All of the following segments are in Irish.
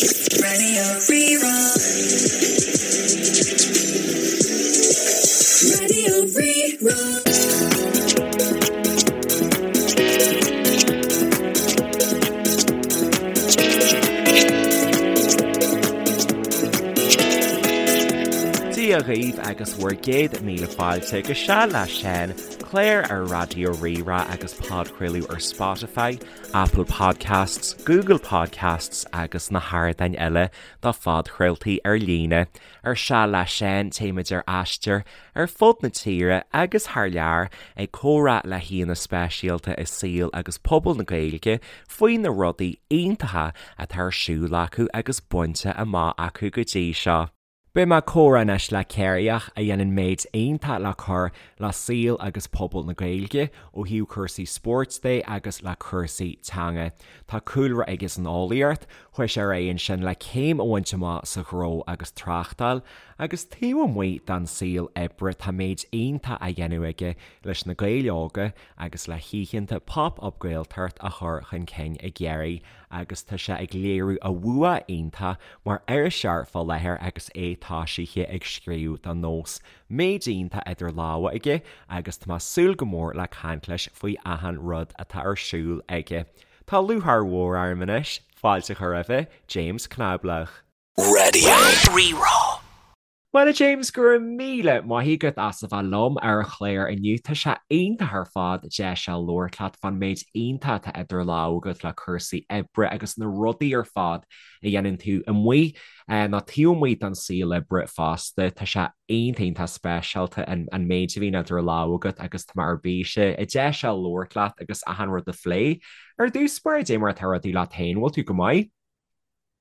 Radio Rí-Rá. Radio Rí-Rá. Dia dhaoibh agus bhur gcéad míle fáilte go Seal le Seán, clár ar Raidió Rí-Rá agus podchraoladh ar Spotify, Apple Podcasts, Google Podcasts agus na hardáin eile do phodchraoltaí ar líne. Ar Seal le Seán téimid ar aistear ar fud na tíre agus thar lear ag comhrá le haíonna speisialta i saol agus pobal na Gaeilge faoi na rudaí iontacha atá ar siúl acu agus bainte amach acu go dtí seo. Beidh mé ag comhrá anois le Ciarraíoch a dhéanann méid iontach le cur le saol agus pobal na Gaeilge ó thaobh cúrsaí spóirt de agus le cúrsaí teanga. Tá cúlra aige san eolaíocht, chuaigh sé ar aghaidh ansin le céim a bhaint amach sa ghnó agus tráchtáil agus taobh amuigh den saol oibre tá méid iontach á dhéanamh aige leis na Gaeil óga agus le hoícheanta Pop Up Gaeltacht a chur chun cinn i gCiarraí agus tá sé ag léiriú a bhua iontach mar iriseoir fá láthair agus é toisithe ag scríobh do Nós. Méid iontach idir lámha aige agus tá mé ag súil go mór le caint leis faoi achan rud atá ar siúl aige. Tá lúcháir mhór orm anois fáilte a chur roimhe, James Cnáiblach. Radio Rí-Rá. Bhuel a James, go raibh míle maith agat as a bheith liom ar an chlár inniu. Tá sé iontach ar fad deis a labhairt leat fán méid iontach atá idir lámha agat le cúrsaí oibre agus na rudaí ar fad a dhéanann tú amuigh nó taobh amuigh den saol oibre fosta. Tá sé iontach iontach speisialta an méid a bhíonn idir lámha agat agus tá mé ar bís a deis a labhairt leat agus achan rud a phlé. Ar dtús báire, dé mar atá rudaí leat féin, bhfuil tú go maith?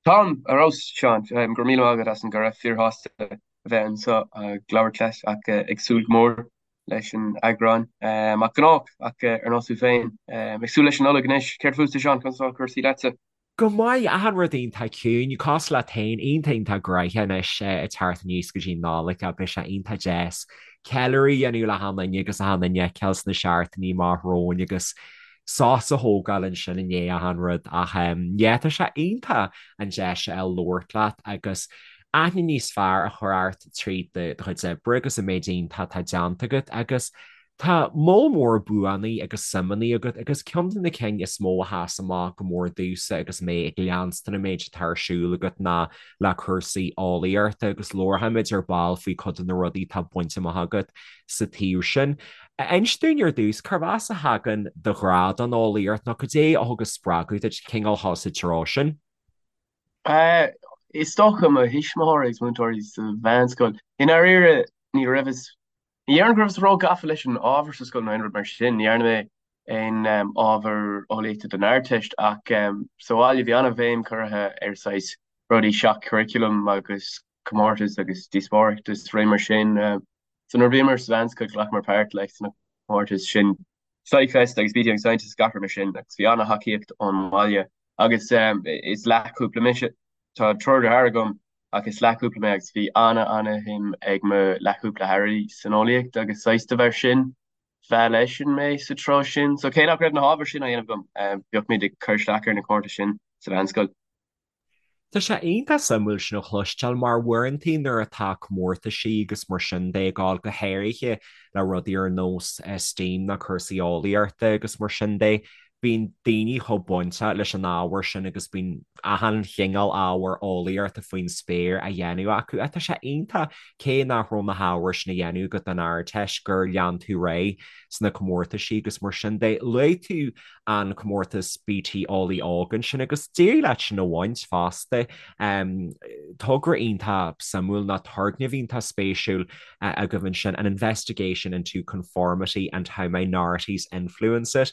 Táim ar fheabhas, Seán. Go raibh míle maith agat as an gcuireadh. Fíorshásta a bheith anseo ag labhairt leat ach ag súil go mór leis an eagrán. Mar ghnách, ach ar nós tú féin, ag súil leis an Nollaig anois. Céard fútsa, Seán? Conas atá cúrsaí leatsa? Go maith, achan rud iontach ciúin, cosúil leat féin, iontach iontach gnoitheach anois ag teacht aníos go dtí an Nollaig ach beidh sé iontach deas ceiliúradh a dhéanamh le hachan duine agus achan duine a fheiceáil sna seachtainí amach romhainn agus sos a thógáil ansin i ndiaidh achan rud ach yeah tá sé iontach an deis a fháil labhairt leat agus aithne níos fearr a chur ort tríd do chuid oibre agus an méid iontach atá déanta agat agus tá moll mór buanna agus suimeanna agat agus ceann de na cinn is mó a sheas amach go mór domhsa agus mé ag leanstan an méid atá ar siúl agat ná le cúrsaí eolaíochta agus labharfaimid ar ball faoi cuid de na rudaí atá bainte amach agat sa taobh sin. Inis dúinn ar dtús, cárb as a thagann do ghrá don eolaíocht nó cad é a thug an spreagadh duit cineál dul sa treo sin? Is dócha mo thuismitheoirí agus múinteoirí sa mheánscoil. I ndáiríre, ní raibheas, ní déarfainn go rabhas ró-gafa leis an ábhar sa scoil nó aon rud mar sin. Ní dhearna mé aon ábhar eolaíochta don Ardteist ach sa bhaile bhí an-bhéim curtha ar saghas rudaí seach-churriculum agus comórtais agus díospóireacht is rudaí mar sin. So nuair a bhíomar sa mheánscoil ghlacamar páirt like sna comórtais sin SciFest agus BT Young Scientist gach rud mar sin agus bhí an-thacaíocht ón mbaile agus is leathchúpla mise. Tá triúr deartháir agam ach is leathchúpla mé agus bhí an-an-shuim ag mo leathchúpla deartháir san eolaíocht agus saghas de bharr sin mheall eisean mé sa treo sin. So cé nach raibh na hábhair sin á dhéanamh agam, bhíodh muid ag cur isteach ar na comórtais sin sa mheánscoil. Tá sé iontach suimiúil sin a chloisteáil mar uaireantaí nuair atá comórtaisí agus mar sin de ag gabháil go háirithe le rudaí ar nós STEAM nó cúrsaí eolaíochta agus mar sin de, bíonn daoine chomh bainteach leis an ábhar sin agus bíonn achan chineál ábhar eolaíochta faoin spéir á dhéanamh acu. Ach tá sé iontach cé nach raibh na hábhair sin á dhéanamh agat don Ardteist gur lean tú ar aghaidh sna comórtaisí agus mar sin de. Luaigh tú an comórtas BT Eolaí Óg ansin agus d'éirigh leat sin a bhaint fosta. Togra iontach suimiúil nó turgnamh iontach spéisiúil agaibh ansin, an investigation into conformity and how minorities influence it.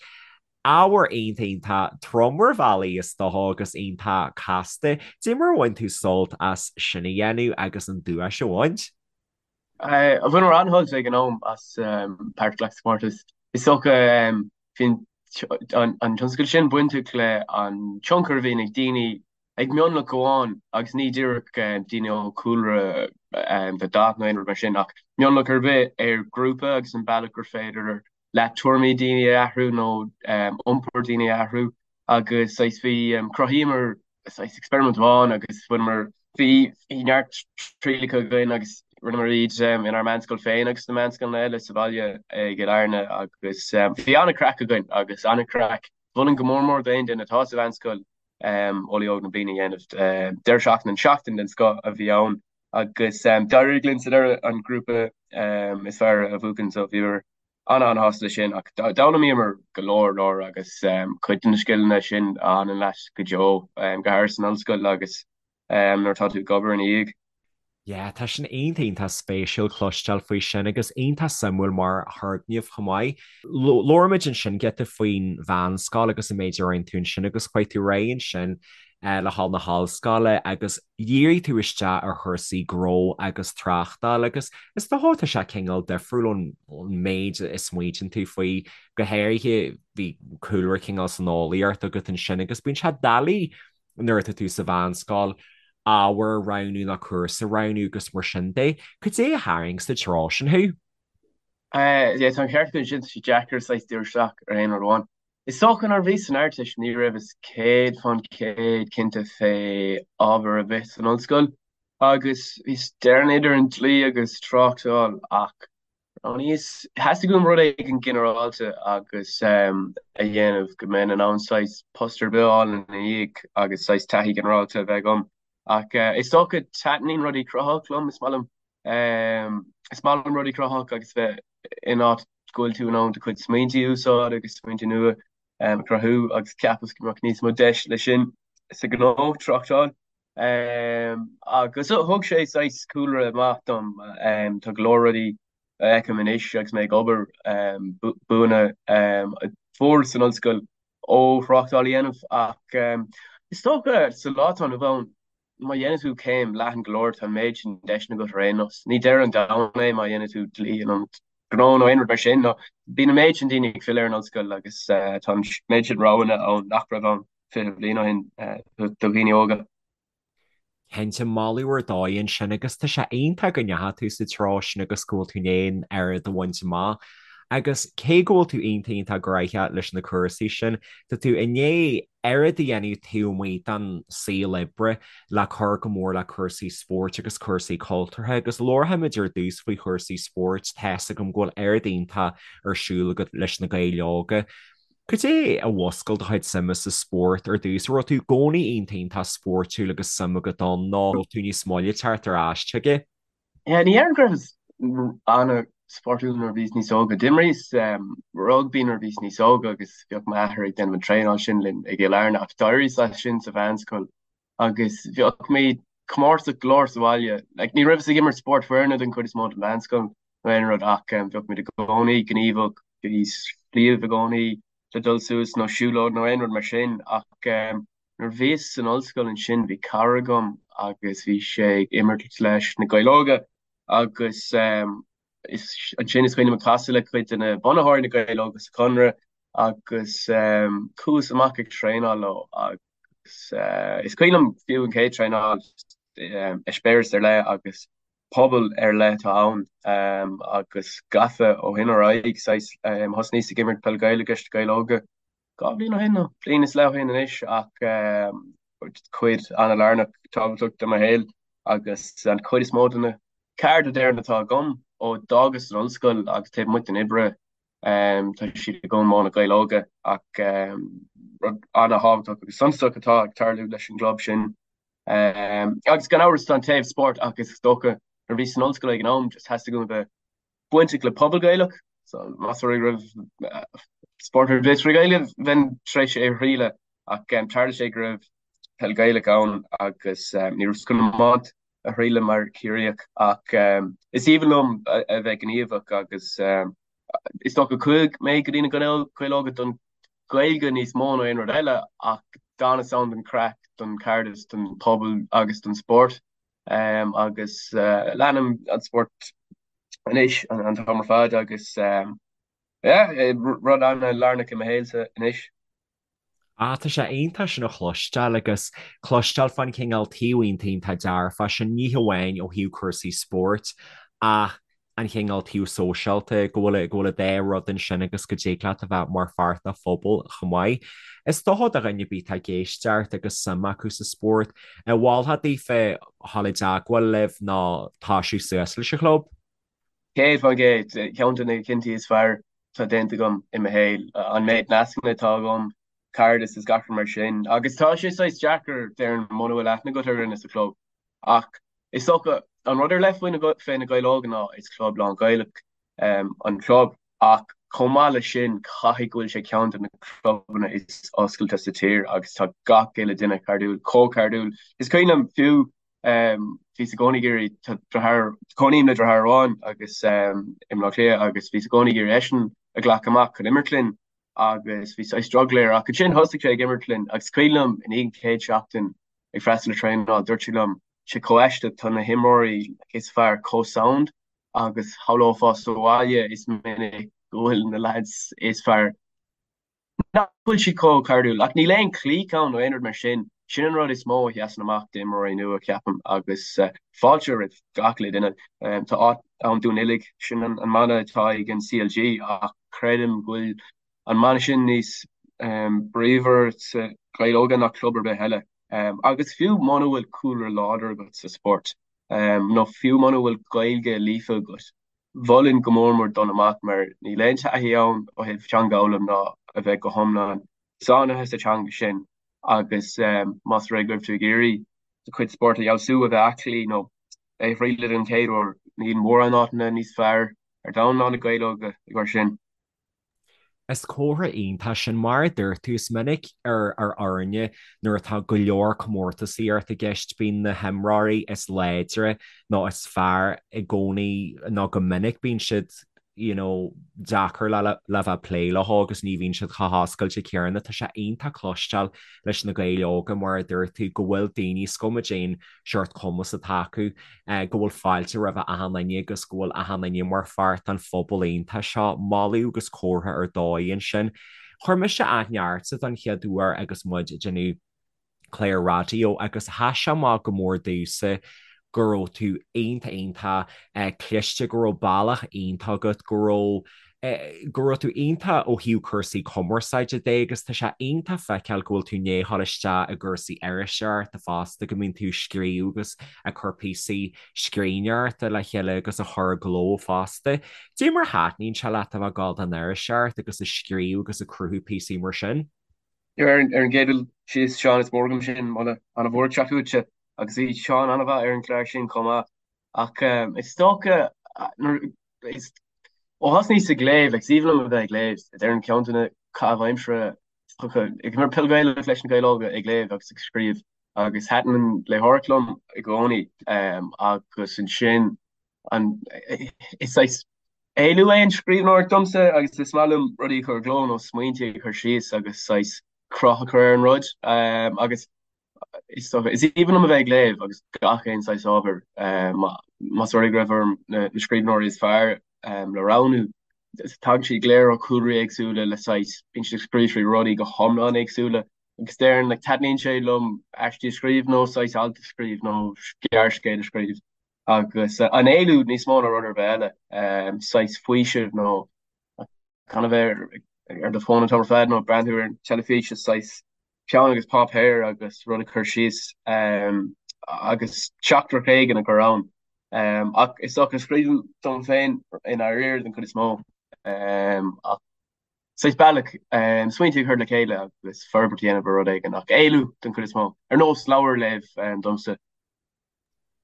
Ábhar iontach iontach trom ar bhealaí is dócha agus iontach casta. Dé mar a bhain tú sult as sin a dhéanamh agus an duais a bhaint? Bhaineamar an-shult ag an am as páirt a ghlacadh sa chomórtas. Is dócha bhí an tionscadal sin bainteach le an tionchar a bhíonn ag daoine ag mionlach amháin agus ní díreach daoine ó chúlra de dhath nó aon rud mar sin ach mionlach ar bith ar ghrúpa agus an bealach gur féidir leat tuairimí daoine a athrú nó iompar daoine a athrú agus saghas bhí chruthaíomar. Saghas experiment amháin agus bhaineamar, bhí neart trialacha againn agus rinneamar iad inár meánscoil féin agus sna meánscoileanna eile sa bhaile i gCill Airne agus bhí an-craic againn agus an-craic. Mholfainn go mór mór d'aon duine atá sa mheánscoil Eolaí Óg na Bliana a dhéanamh. Deireadh seachtaine, an seachtain den scoth a bhí ann agus d'éirigh linn sa deireadh an grúpa is fearr a bhuachan so bhíomar an-an-shásta leis sin ach d'fhoghlaimíomar go leor leor agus cuid de na scileanna sin a fhanann leat go deo, go háirithe san ollscoil agus nuair atá tú ag obair ina dhiaidh. Yeah, tá sin iontach iontach spéisiúil cloisteáil faoi sin agus iontach suimiúil mar thurgnamh chomh maith. Labhair muid ansin giota faoin mheánscoil agus an méid a rinne tú ansin agus chuaigh tú ar aghaidh ansin le dhul na hollscoile agus dhírigh tú isteach ar chúrsaí gnó agus tráchtáil agus is dócha tá sé cineál difriúil ón méid a smaoitíonn tú faoi, go háirithe bhí cúlra cineál san eolaíocht agat ansin agus bíonn sé doiligh nuair atá tú sa mheánscoil ábhar a roghnú nó cúrsa a roghnú agus mar sin de. Cad é a tharraing sa treo sin thú? Yeah, tá an ceart agat ansin, tá sé deacair saghas díriú isteach ar aon rud amháin. Is dócha nuair a bhíos san Ardteist ní raibheas 100% cinnte fé ábhar ar bith san ollscoil agus bhíos déarfainn idir an dlí agus tráchtáil ach roghnaíos, theastaigh uaim rud éigin ginearálta agus a dhéanamh go mbeinn in ann saghas post ar bith a fháil ina dhiaidh agus saghas taithí ginearálta a bheith agam. Ach is dócha taitníonn rudaí cruthaitheach liom, is maith liom is maith liom rudaí cruthaitheach agus bheith in áit go bhfuil tú in ann do chuid smaointe a úsáid agus smaointe nua a chruthú agus cheapas go mbeadh níos mó deis leis sin sa ghnó, tráchtáil. Agus thug sé saghas cúlra maith dom. Tá go leor rudaí a fheicim anois agus mé ag obair, buanna a fuaireas san ollscoil ó thráchtáil a dhéanamh ach is dócha sa lá atá inniu ann, má dhéanann tú céim leathan go leor, tá an méid sin deiseanna agat ar aon nós. Ní deireadh an domhain é má dhéanann tú dlí in ionad gnó nó aon rud mar sin. Nó bíonn an méid sin daoine ag filleadh ar an ollscoil agus tá an méid sin roghanna ann nach raibh ann 20 bliain ó shin do dhaoine óga. Cinnte, moladh ar dóigh ansin agus tá sé iontach go ndeachaigh tú sa treo sin agus go bhfuil tú in ann oiread a bhaint amach. Agus cé go bhfuil tú iontach iontach gnaitheach leis na cúrsaí sin, tá tú i ndiaidh oiread a dhéanamh taobh amuigh den saol oibre le cur go mór le cúrsaí spóirt agus cúrsaí cultúrtha agus labharfaimid ar dtús faoi chúrsaí spóirt, tá's agam go bhfuil oiread iontach ar siúl agat leis na Gaeil Óga. Cad é a mhúscail do chuid suime sa spórt ar dtús? An raibh tú i gcónaí iontach iontach spóirtiúil agus suim agat ann nó raibh tú níos moille teacht ar ais chuige? Yeah, ní déarfainn go rabhas an-spórtúil nuair a bhíos níos óga. D'imríos rugbaí nuair a bhíos níos óga agus bhíodh m'athair ag déanamh an traenáil sin linn i gCill Airne ach d'éiríos as sin sa mheánscoil agus bhíodh mé comórtasach go leor sa bhaile. Like, ní rabhas ag imirt spórt foirne den chuid is mó den mheánscoil nó aon rud ach bhíodh muid i gcónaí gníomhach, bhí sliabh i gcónaí le dul suas nó siúlóid nó aon rud mar sin ach Nuair a bhíos san ollscoil ansin bhí cara agam agus bhí sé ag imirt leis na Gaeil Óga agus ansin is cuimhin liom casadh le cuid de na bunaitheoirí na Gaeil Óga sa Chonradh agus chuas amach ag traenáil leo agus is cuimhin liom fiú an chéad traenáil, eispéireas ar leith agus pobal ar leith atá ann agus gafa ó shin ar aghaidh, saghas thosnaíos ag imirt peil Gaelach leis na Gaeil Óga. 2 bhliain ó shin nó bliain is leath ó shin anois ach cuid an-lárnach tábhachtach de mo shaol agus an chuid is mó de na cairde déarfainn atá agam ó d'fhágas an ollscoil agus taobh amuigh den oibre tá siad agam ó na Gaeil Óga ach rud an-thábhachtach agus suntasach atá ag tarlú leis an gclub sin. Agus gan amhras tá an taobh spóirt ach is dócha nuair a bhíos san ollscoil ag an am just theastaigh uaim a bheith bainteach le pobal Gaelach, so más rud é go raibh spórt ar bith trí Ghaeilge, bheinn tar éis é a thriail ach tharla sé go raibh peil Ghaelach ann agus ní rabhas chun iomáint a thriail mar Chiarraíoch ach is aoibhinn liom a bheith gníomhach agus is dócha chuaigh mé go dtí na Gaeil Óga don Ghaeilge níos mó ná aon rud eile ach d'fhanas ann don chraic, don chairdeas, don phobal agus don spórt agus leanaim an spórt anois an t-am ar fad agus yeah, rud an-lárnach i mo shaolsa anois. Ah, tá sé iontach sin a chloisteáil agus cloisteáil fán chineál taobh iontach iontach dearfach sin, ní hamháin ó thaobh cúrsaí spóirt ach. an chineál taobh sóisialta, go bhfuil, go bhfuil an dá rud ansin agus go dtig leat a bheith mar pháirt de phobal chomh maith. Is dócha do dhuine ar bith atá ag éisteacht agus suim acu sa spórt, an mholfá daofa dhul i dteagmháil libh nó toisiú suas leis an chlub? 100%, ceann de na cinntí is fearr atá déanta agam i mo shaol, an méid nascanna atá agam, cairdeas is gach rud mar sin. Agus tá sé saghas deacair, déarfainn, muna bhfuil aithne agat ar dhuine sa chlub. Ach is dócha, an rud ar leith faoi fé na Gaeil Óga ná is club lán-Ghaelach an club ach chomh maith leis sin caithfidh go bhfuil sé ceann de na clubanna is oscailte sa tír agus tá gach uile duine cairdiúil, chomh cairdiúil. Is cuimhin liom fiú bhíos i gcónaí ag iarraidh, tá deartháir, cónaím le deartháir amháin agus i mBleá Cliath agus bhíos i gcónaí ag iarraidh eisean a ghlacadh amach chun imirt linn agus bhí saghas drogall air ach ansin thosaigh sé ag imirt linn agus is cuimhin liom i ndiaidh an chéad seachtain ag freastal ar traenáil, dúirt sé liom, sé chomh aisteach, tá na himreoirí is fearr chomh sound agus shamhlófá sa bhaile is minic go bhfuil na lads is fearr nach bhfuil siad chomh cairdiúil. Ach níl aon clique ann nó aon rud mar sin. Sin an rud is mó a sheasann amach d'imreoirí nua, ceapaim, agus fáilte roimh gach uile duine. Tá áit ann dúinn uilig, sin an mana atá ag an CLG ach creidim go bhfuil an mana sin níos bríomhar sa Ghaeil Óga ná club ar bith eile. Agus fiú muna bhfuil cúlra láidir agat sa spórt, nó fiú muna bhfuil Gaeilge líofa agat, mholfainn go mór mór dul amach mar níl aon taithí ann ó thaobh teanga a fhoghlaim ná a bheith go hiomlán sáinnithe sa teanga sin agus más rud é go raibh tú ag iarraidh do chuid spóirt a fheabhsú, a bheith aclaí nó é a thriail den chéad uair, níl mórán áiteanna níos fearr ar domhan ná na Gaeil Óga i gcomhair sin. Is comhartha iontach sin, mar a dúirt tú, is minic ar ar fhoirne nuair atá go leor comórtasaíocht i gceist, bíonn na himreoirí is láidre nó is fearr i gcónaí nó go minic bíonn siad you know deacair le le bheith ag plé leo agus ní bhíonn siad chomh hoscailte céanna. Tá sé iontach cloisteáil leis na Gaeil Óga mar a dúirt tú go bhfuil daoine, is cuma cén seort cumas atá acu, go bhfuil fáilte roimh achan duine agus go bhfuil achan duine mar pháirt den phobal iontach seo. Moladh agus comhartha ar dóigh ansin. Chuir mise aithne ortsa don chéad uair agus muid ag déanamh clár raidió agus sheas sé amach go mór domhsa go raibh tú iontach iontach cliste, go raibh bealach iontach agat, go raibh go raibh tú iontach ó thaobh cúrsaí cumarsáide de agus tá sé iontach feiceáil go bhfuil tú i ndiaidh a ghabháil isteach i gcúrsaí iriseoireachta fosta, go mbíonn tú ag scríobh agus ag cur píosaí scríbhneoireachta le chéile agus a chur i gcló fosta. Cad é mar a thaitníonn sé leat a bheith ag gabháil don iriseoireacht agus ag scríobh agus ag cruthú píosaí mar sin? Ar an gcéad dul síos, Seán, is mór agam sin, moladh an-mhór ag teacht uaitse agus bhí Seán an-mhaith ar an gclár sin chomh maith. Ach is dócha nuair is ó thosnaíos ag léamh, like, is aoibhinn liom a bheith ag léamh, déarfainn ceann de na caitheamh aimsire is dócha, ag imirt peil Ghaelach leis na Gaeil Óga, ag léamh agus ag scríobh agus thaitin an léitheoireacht liom i gcónaí agus ansin an is saghas éalú é an scríbhneoireacht domsa agus is maith liom rudaí a chur i gcló nó smaointe a chur síos agus saghas cruth a chur ar an rud agus Is dócha, is aoibhinn liom a bheith ag léamh agus gach aon saghas ábhair. Más rud é go raibh orm na scríbhneoirí is fearr le roghnú, tagann siad go léir ó chúlraí éagsúla le saghas, bíonn siad ag scríobh faoi rudaí go hiomlán éagsúla. Agus déarfainn, like, taitníonn sé liom aistí a scríobh nó saghas alt a scríobh nó gearrscéal a scríobh. Agus an éalú níos mó ná rud ar bith eile, saghas faoiseamh nó gan a bheith ar do fón an t-am ar fad nó ag breathnú ar an teilifís is saghas peann agus páipéar agus rud a chur síos agus teachtaireacht éigin a chur ann. Ach is dócha scríobhaim dom féin i ndáiríre den chuid is mó ach saghas bealach smaointe a chur le chéile agus forbairt a dhéanamh ar rud éigin ach éalú den chuid is mó. Ar nós leabhar a léamh domsa.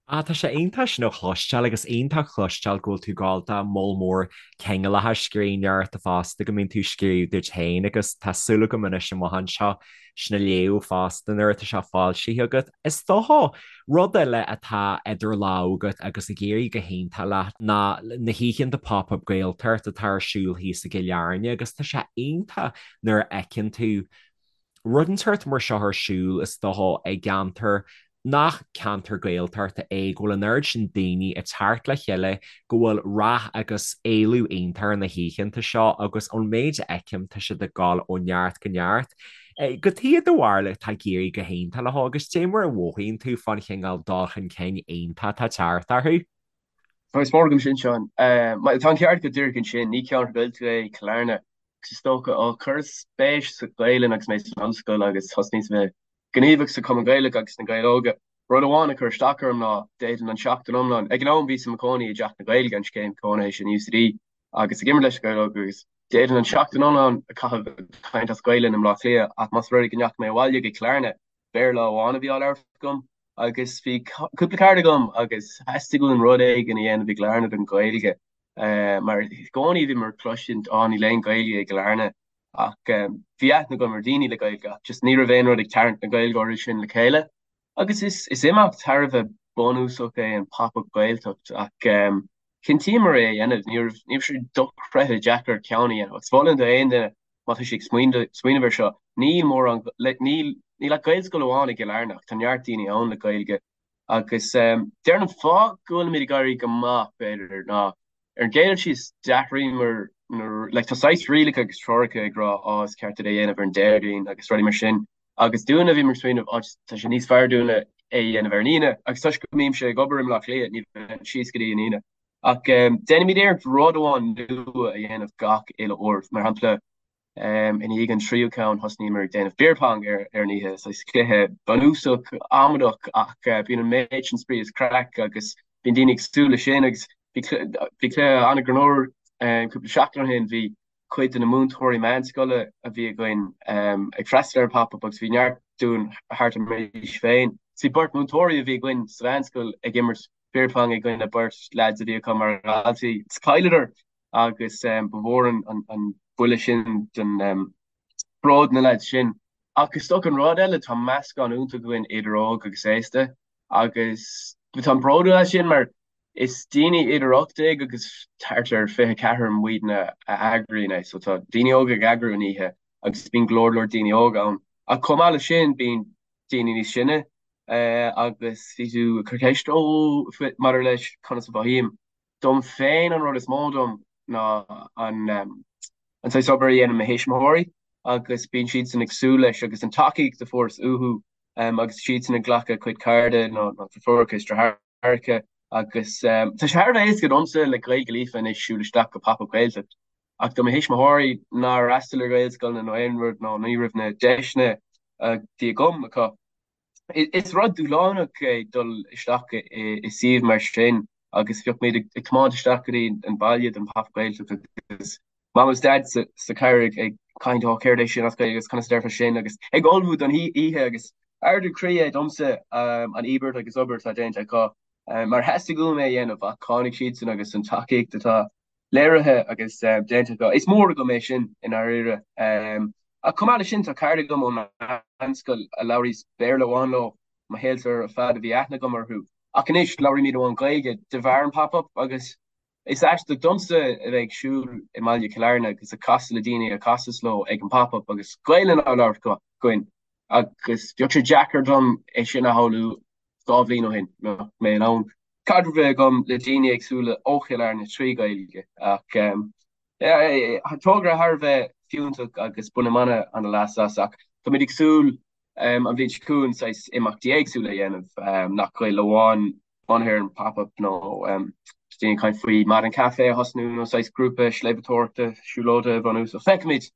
Ah, tá sé iontach sin a chloisteáil agus iontach cloisteáil go bhfuil tú ag gabháil do moll mór cineálacha scríbhneoireachta fosta, go mbíonn tú ag scríobh duit féin agus tá súil agam anois amach anseo sin a léamh fosta nuair atá sé foilsithe agat. Is dócha, rud eile atá idir lámha agat agus ag éirí go hiontach leat ná na hoícheanta Pop Up Gaeltacht atá ar siúl thíos i gCill Airne agus tá sé iontach nuair a fheiceann tú rud inteacht mar seo ar siúl, is dócha, i gceantar nach ceantar Gaeltachta é, go bhfuil an oiread sin daoine ag teacht le chéile, go bhfuil rath agus éileamh iontach ar na hoícheanta seo agus ón méid a fheicim tá siad ag dul ó neart go neart. Cad é do bharúil atá ag éirí go hiontach leo agus cad é mar a mhothaíonn tú fán chineál dul chun cinn iontach atá ag teacht orthu. Tá is mór agam sin, Seán. Tá an ceart agat díreach ansin, ní ceantar Gaeltachta é Cill Airne. Agus is dócha, ó chuireas spéis sa Ghaelainn agus mé san ollscoil agus thosnaíos a bheith gníomhach sa Chumann Gaelach agus sna Gaeil Óga, rud amháin a chuir isteach orm ná d'fhéadfainn an tseachtain iomlán, ag an am bhíos i mo chónaí i dTeach na Gaeilge, an scéim cónaithe sin UCD, agus ag imirt leis na Gaeil Óga agus d'fhéadfainn an tseachtain iomlán a chaitheamh ag caint as Gaelainn i mBleá Cliath ach más rud é go ndeachaigh mé abhaile go Cill Airne, Béarla amháin a bhí á labhairt agam agus bhí cúpla cara agam agus theastaigh uainn rud éigin a dhéanamh i gCill Airne don Ghaeilge mar i gcónaí bhíomar ag cloisint á níl aon Ghaeilge i gCill Airne ach bhí aithne agam ar dhaoine le Gaeilge ach just ní raibh aon rud ag tarraingt na Gaeilgeoirí sin le chéile agus is is imeacht thar a bheith bunúsach é an Pop-Up Gaeltacht ach chinntíomar é a dhéanamh ní raibh ní raibh sé dochreidte deacair ceann a dhéanamh agus mholfainn do aon duine má tá sé ag smaoineamh air seo, níl mórán, níl, níl ach Gaelscoil amháin i gCill Airne ach tá neart daoine ann le Gaeilge agus déarfainn an fáth go bhfuilimid ag éirí go maith, b'fhéidir, ná ar an gcéad dul síos d'athraíomar na, like tá saghas rialacha agus treoracha ag rá á is ceart duit é a dhéanamh ar an Déardaoin agus rudaí mar sin agus dúinne bhíomar ag smaoineamh á tá sé níos fearr dúinne é a dhéanamh ar an Aoine agus toisc go mbímse ag obair i mBleá Cliath ní bheinn síos go dtí an Aoine. Ach déanaimid iarracht rud amháin nua a dhéanamh gach uile uair. Mar shampla, i ndiaidh an tríú ceann thosnaíomar ag déanamh beer pong ar an oíche. Saghas cluiche bunúsach, amadach ach bíonn an méid sin spraoi is craic agus bíonn daoine ag súil leis sin agus bhí cluiche an-ghreannmhar cúpla seachtain ó shin, bhí cuid de na múinteoirí meánscoile a bhí againn ag freastal ar an Pop Up agus bhí neart dúinn thart ar m'aois féin. Bhí beirt mhúinteoirí a bhí againn sa mheánscoil ag imirt beer pong i gcoinne beirt leaids a bhí acu mar dhaltaí. Chailleadar agus ba mhór an buille sin don bród na leaids sin. Ach is dócha an rud eile, tá meascán iontach againn idir óg agus aosta agus táim bródúil as sin mar is daoine idir 18 agus thart ar 24 muidne a eagraíonn é. So tá daoine óga ag eagrú an oíche agus bíonn go leor leor daoine óga ann. Ach chomh maith leis sin bíonn daoine níos sine agus bhí tú ag cur ceist ó maidir leis conas a mhothaím. Dom féin an rud is mó dom ná an an saghas obair a dhéanann mo thuismitheoirí agus bíonn siadsan ag súil leis agus an tacaíocht a fuaireas uathu agus siadsan ag glacadh a gcuid cairde nó deirfiúracha is deartháireacha agus tá sé thar a bheith éasca domsa le Gaeilge líofa anois siúl isteach go Pop Up Gaeltacht ach do mo thuismitheoirí nár fhreastail ar Ghaelscoileanna nó aon rud nó ní raibh na deiseanna a bhí agam acu. Is rud dúshlánach é dul isteach i suíomh mar sin agus bheadh muid ag tiomáint isteach go dtí an baile don Pop Up Gaeltacht agus Mam agus Dad sa charr ag caint ó céard é sin as Gaeilge agus conas a déarfá sin agus ag ullmhú don oíche agus ardú croí é domsa an íobairt agus obair atá déanta acu mar theastaigh uaim é a dhéanamh ach tháinig siadsan agus an tacaíocht atá léirithe agus déanta acu. Is mór agam é sin i ndáiríre. Ach chomh maith leis sin, tá cairde agam ón meánscoil a labhraíos Béarla amháin leo mo shaolsa ar fad a bhí aithne agam orthu. Ach anois labhraímid amháin Gaeilge de bharr an Pop Up agus is aisteach domsa a bheith ag siúl i mbaile Chill Airne agus ag casadh le daoine a chasas leo ag an Pop Up agus Gaelainn á labhairt againn agus bheadh sé deacair dom é sin a shamhlú 2 bhliain ó shin, mbeadh mé in ann caidreamh a bheith agam le daoine éagsúla ó Chill Airne trí Ghaeilge ach togra thar a bheith fiúntach agus bainim an-leas as ach táimid ag súil an bhliain seo chugainn saghas imeachtaí éagsúla a dhéanamh nach Gaeilge amháin bunaithe ar an Pop Up nó daoine ag caint faoi maidin caife a thosnú nó saghas grúpa sléibhteoireachta siúlóide a bhunú so feicfimid.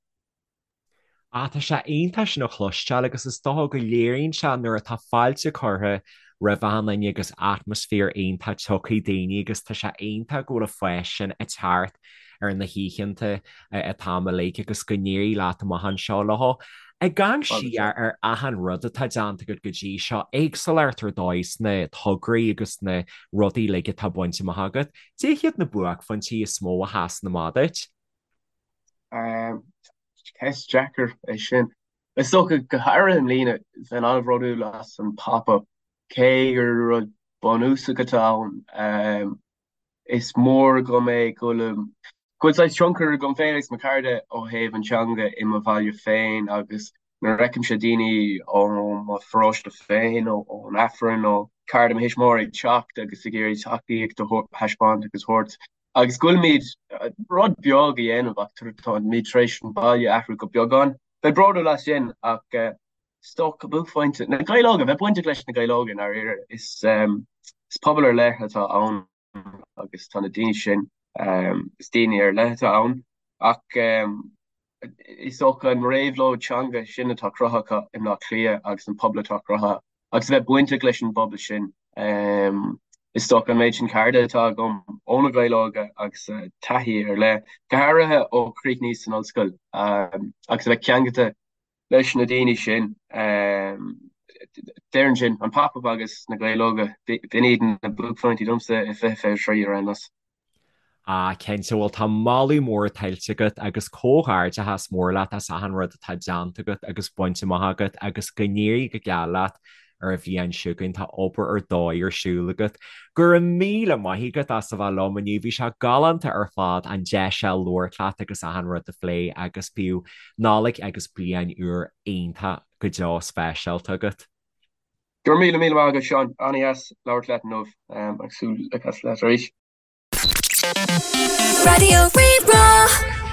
Ah, tá sé iontach sin a chloisteáil agus is dócha go léiríonn sé nuair atá fáilte curtha roimh achan duine agus atmaisféar iontach tiocfaidh daoine agus tá sé iontach go bhfuil an fás sin ag teacht ar na hoícheanta an t-am uilig agus go n-éirí leat amach anseo leo. Ag amharc siar ar achan rud atá déanta agat go dtí seo, éagsúlacht ar dóigh sna tograí agus na rudaí uilig atá bainte amach agat, cad iad na buaicphointí is mó a sheasann amach duit? Ceist deacair é sin. Is dócha, go háirithe i mbliana, bheinn an-bhródúil as an Pop Up, cé gur rud bunúsach atá ann. Is mór agam é go bhfuil go bhfuil saghas tionchar agam féin agus mo chairde ó thaobh an teanga i mo bhaile féin agus nuair a fheicimse daoine ó mo pharóiste féin, ón Aifreann, nó cairde mo thuismitheoirí ag teacht agus ag iarraidh tacaíocht a thaispeáint agus a thabhairt Agus go bhfuilimid rud beag a dhéanamh ach táimid tar éis an baile a athrú go beagán. Bheinn bródúil as sin ach is dócha buaicphointe na Gaeil Óga, bheith bainteach leis na Gaeil Óga i ndáiríre. Is pobal ar leith atá ann. agus tá na daoine sin, is daoine ar leith atá ann ach is dócha an réabhlóid teanga sin atá cruthaithe acu i mBleá Cliath agus an pobal atá cruthaithe agus a bheith bainteach leis an bpobal sin. Is dócha an méid sin cairde atá agam ó na Gaeil Óga agus taithí ar leith, go háirithe ó chríochnaíos san ollscoil agus a bheith ceangailte leis na daoine sin. Déarfainn sin, an Pop Up agus na Gaeil Óga, b'in iad na buaicphointí domsa i 2023 ar aon nós. Ah, cinnte, bhuel tá moladh mór tuillte agat agus comhghairdeachas mór leat as achan rud atá déanta agat agus bainte amach agat agus go n-éirí go geal leat ar an bhliain seo chugainn, tá obair ar dóigh ar siúl agat. Go raibh míle maith agat as a bheith liom inniu, bhí sé galánta ar fad an deis seo labhairt leat agus achan rud a phlé agus bíodh Nollaig agus Bliain Úr iontach go deo speisialta agat. Go raibh míle míle maith agat Seán, an-dheas labhairt leat inniu agus súil le casadh leat arís. Raidió Rí-Rá.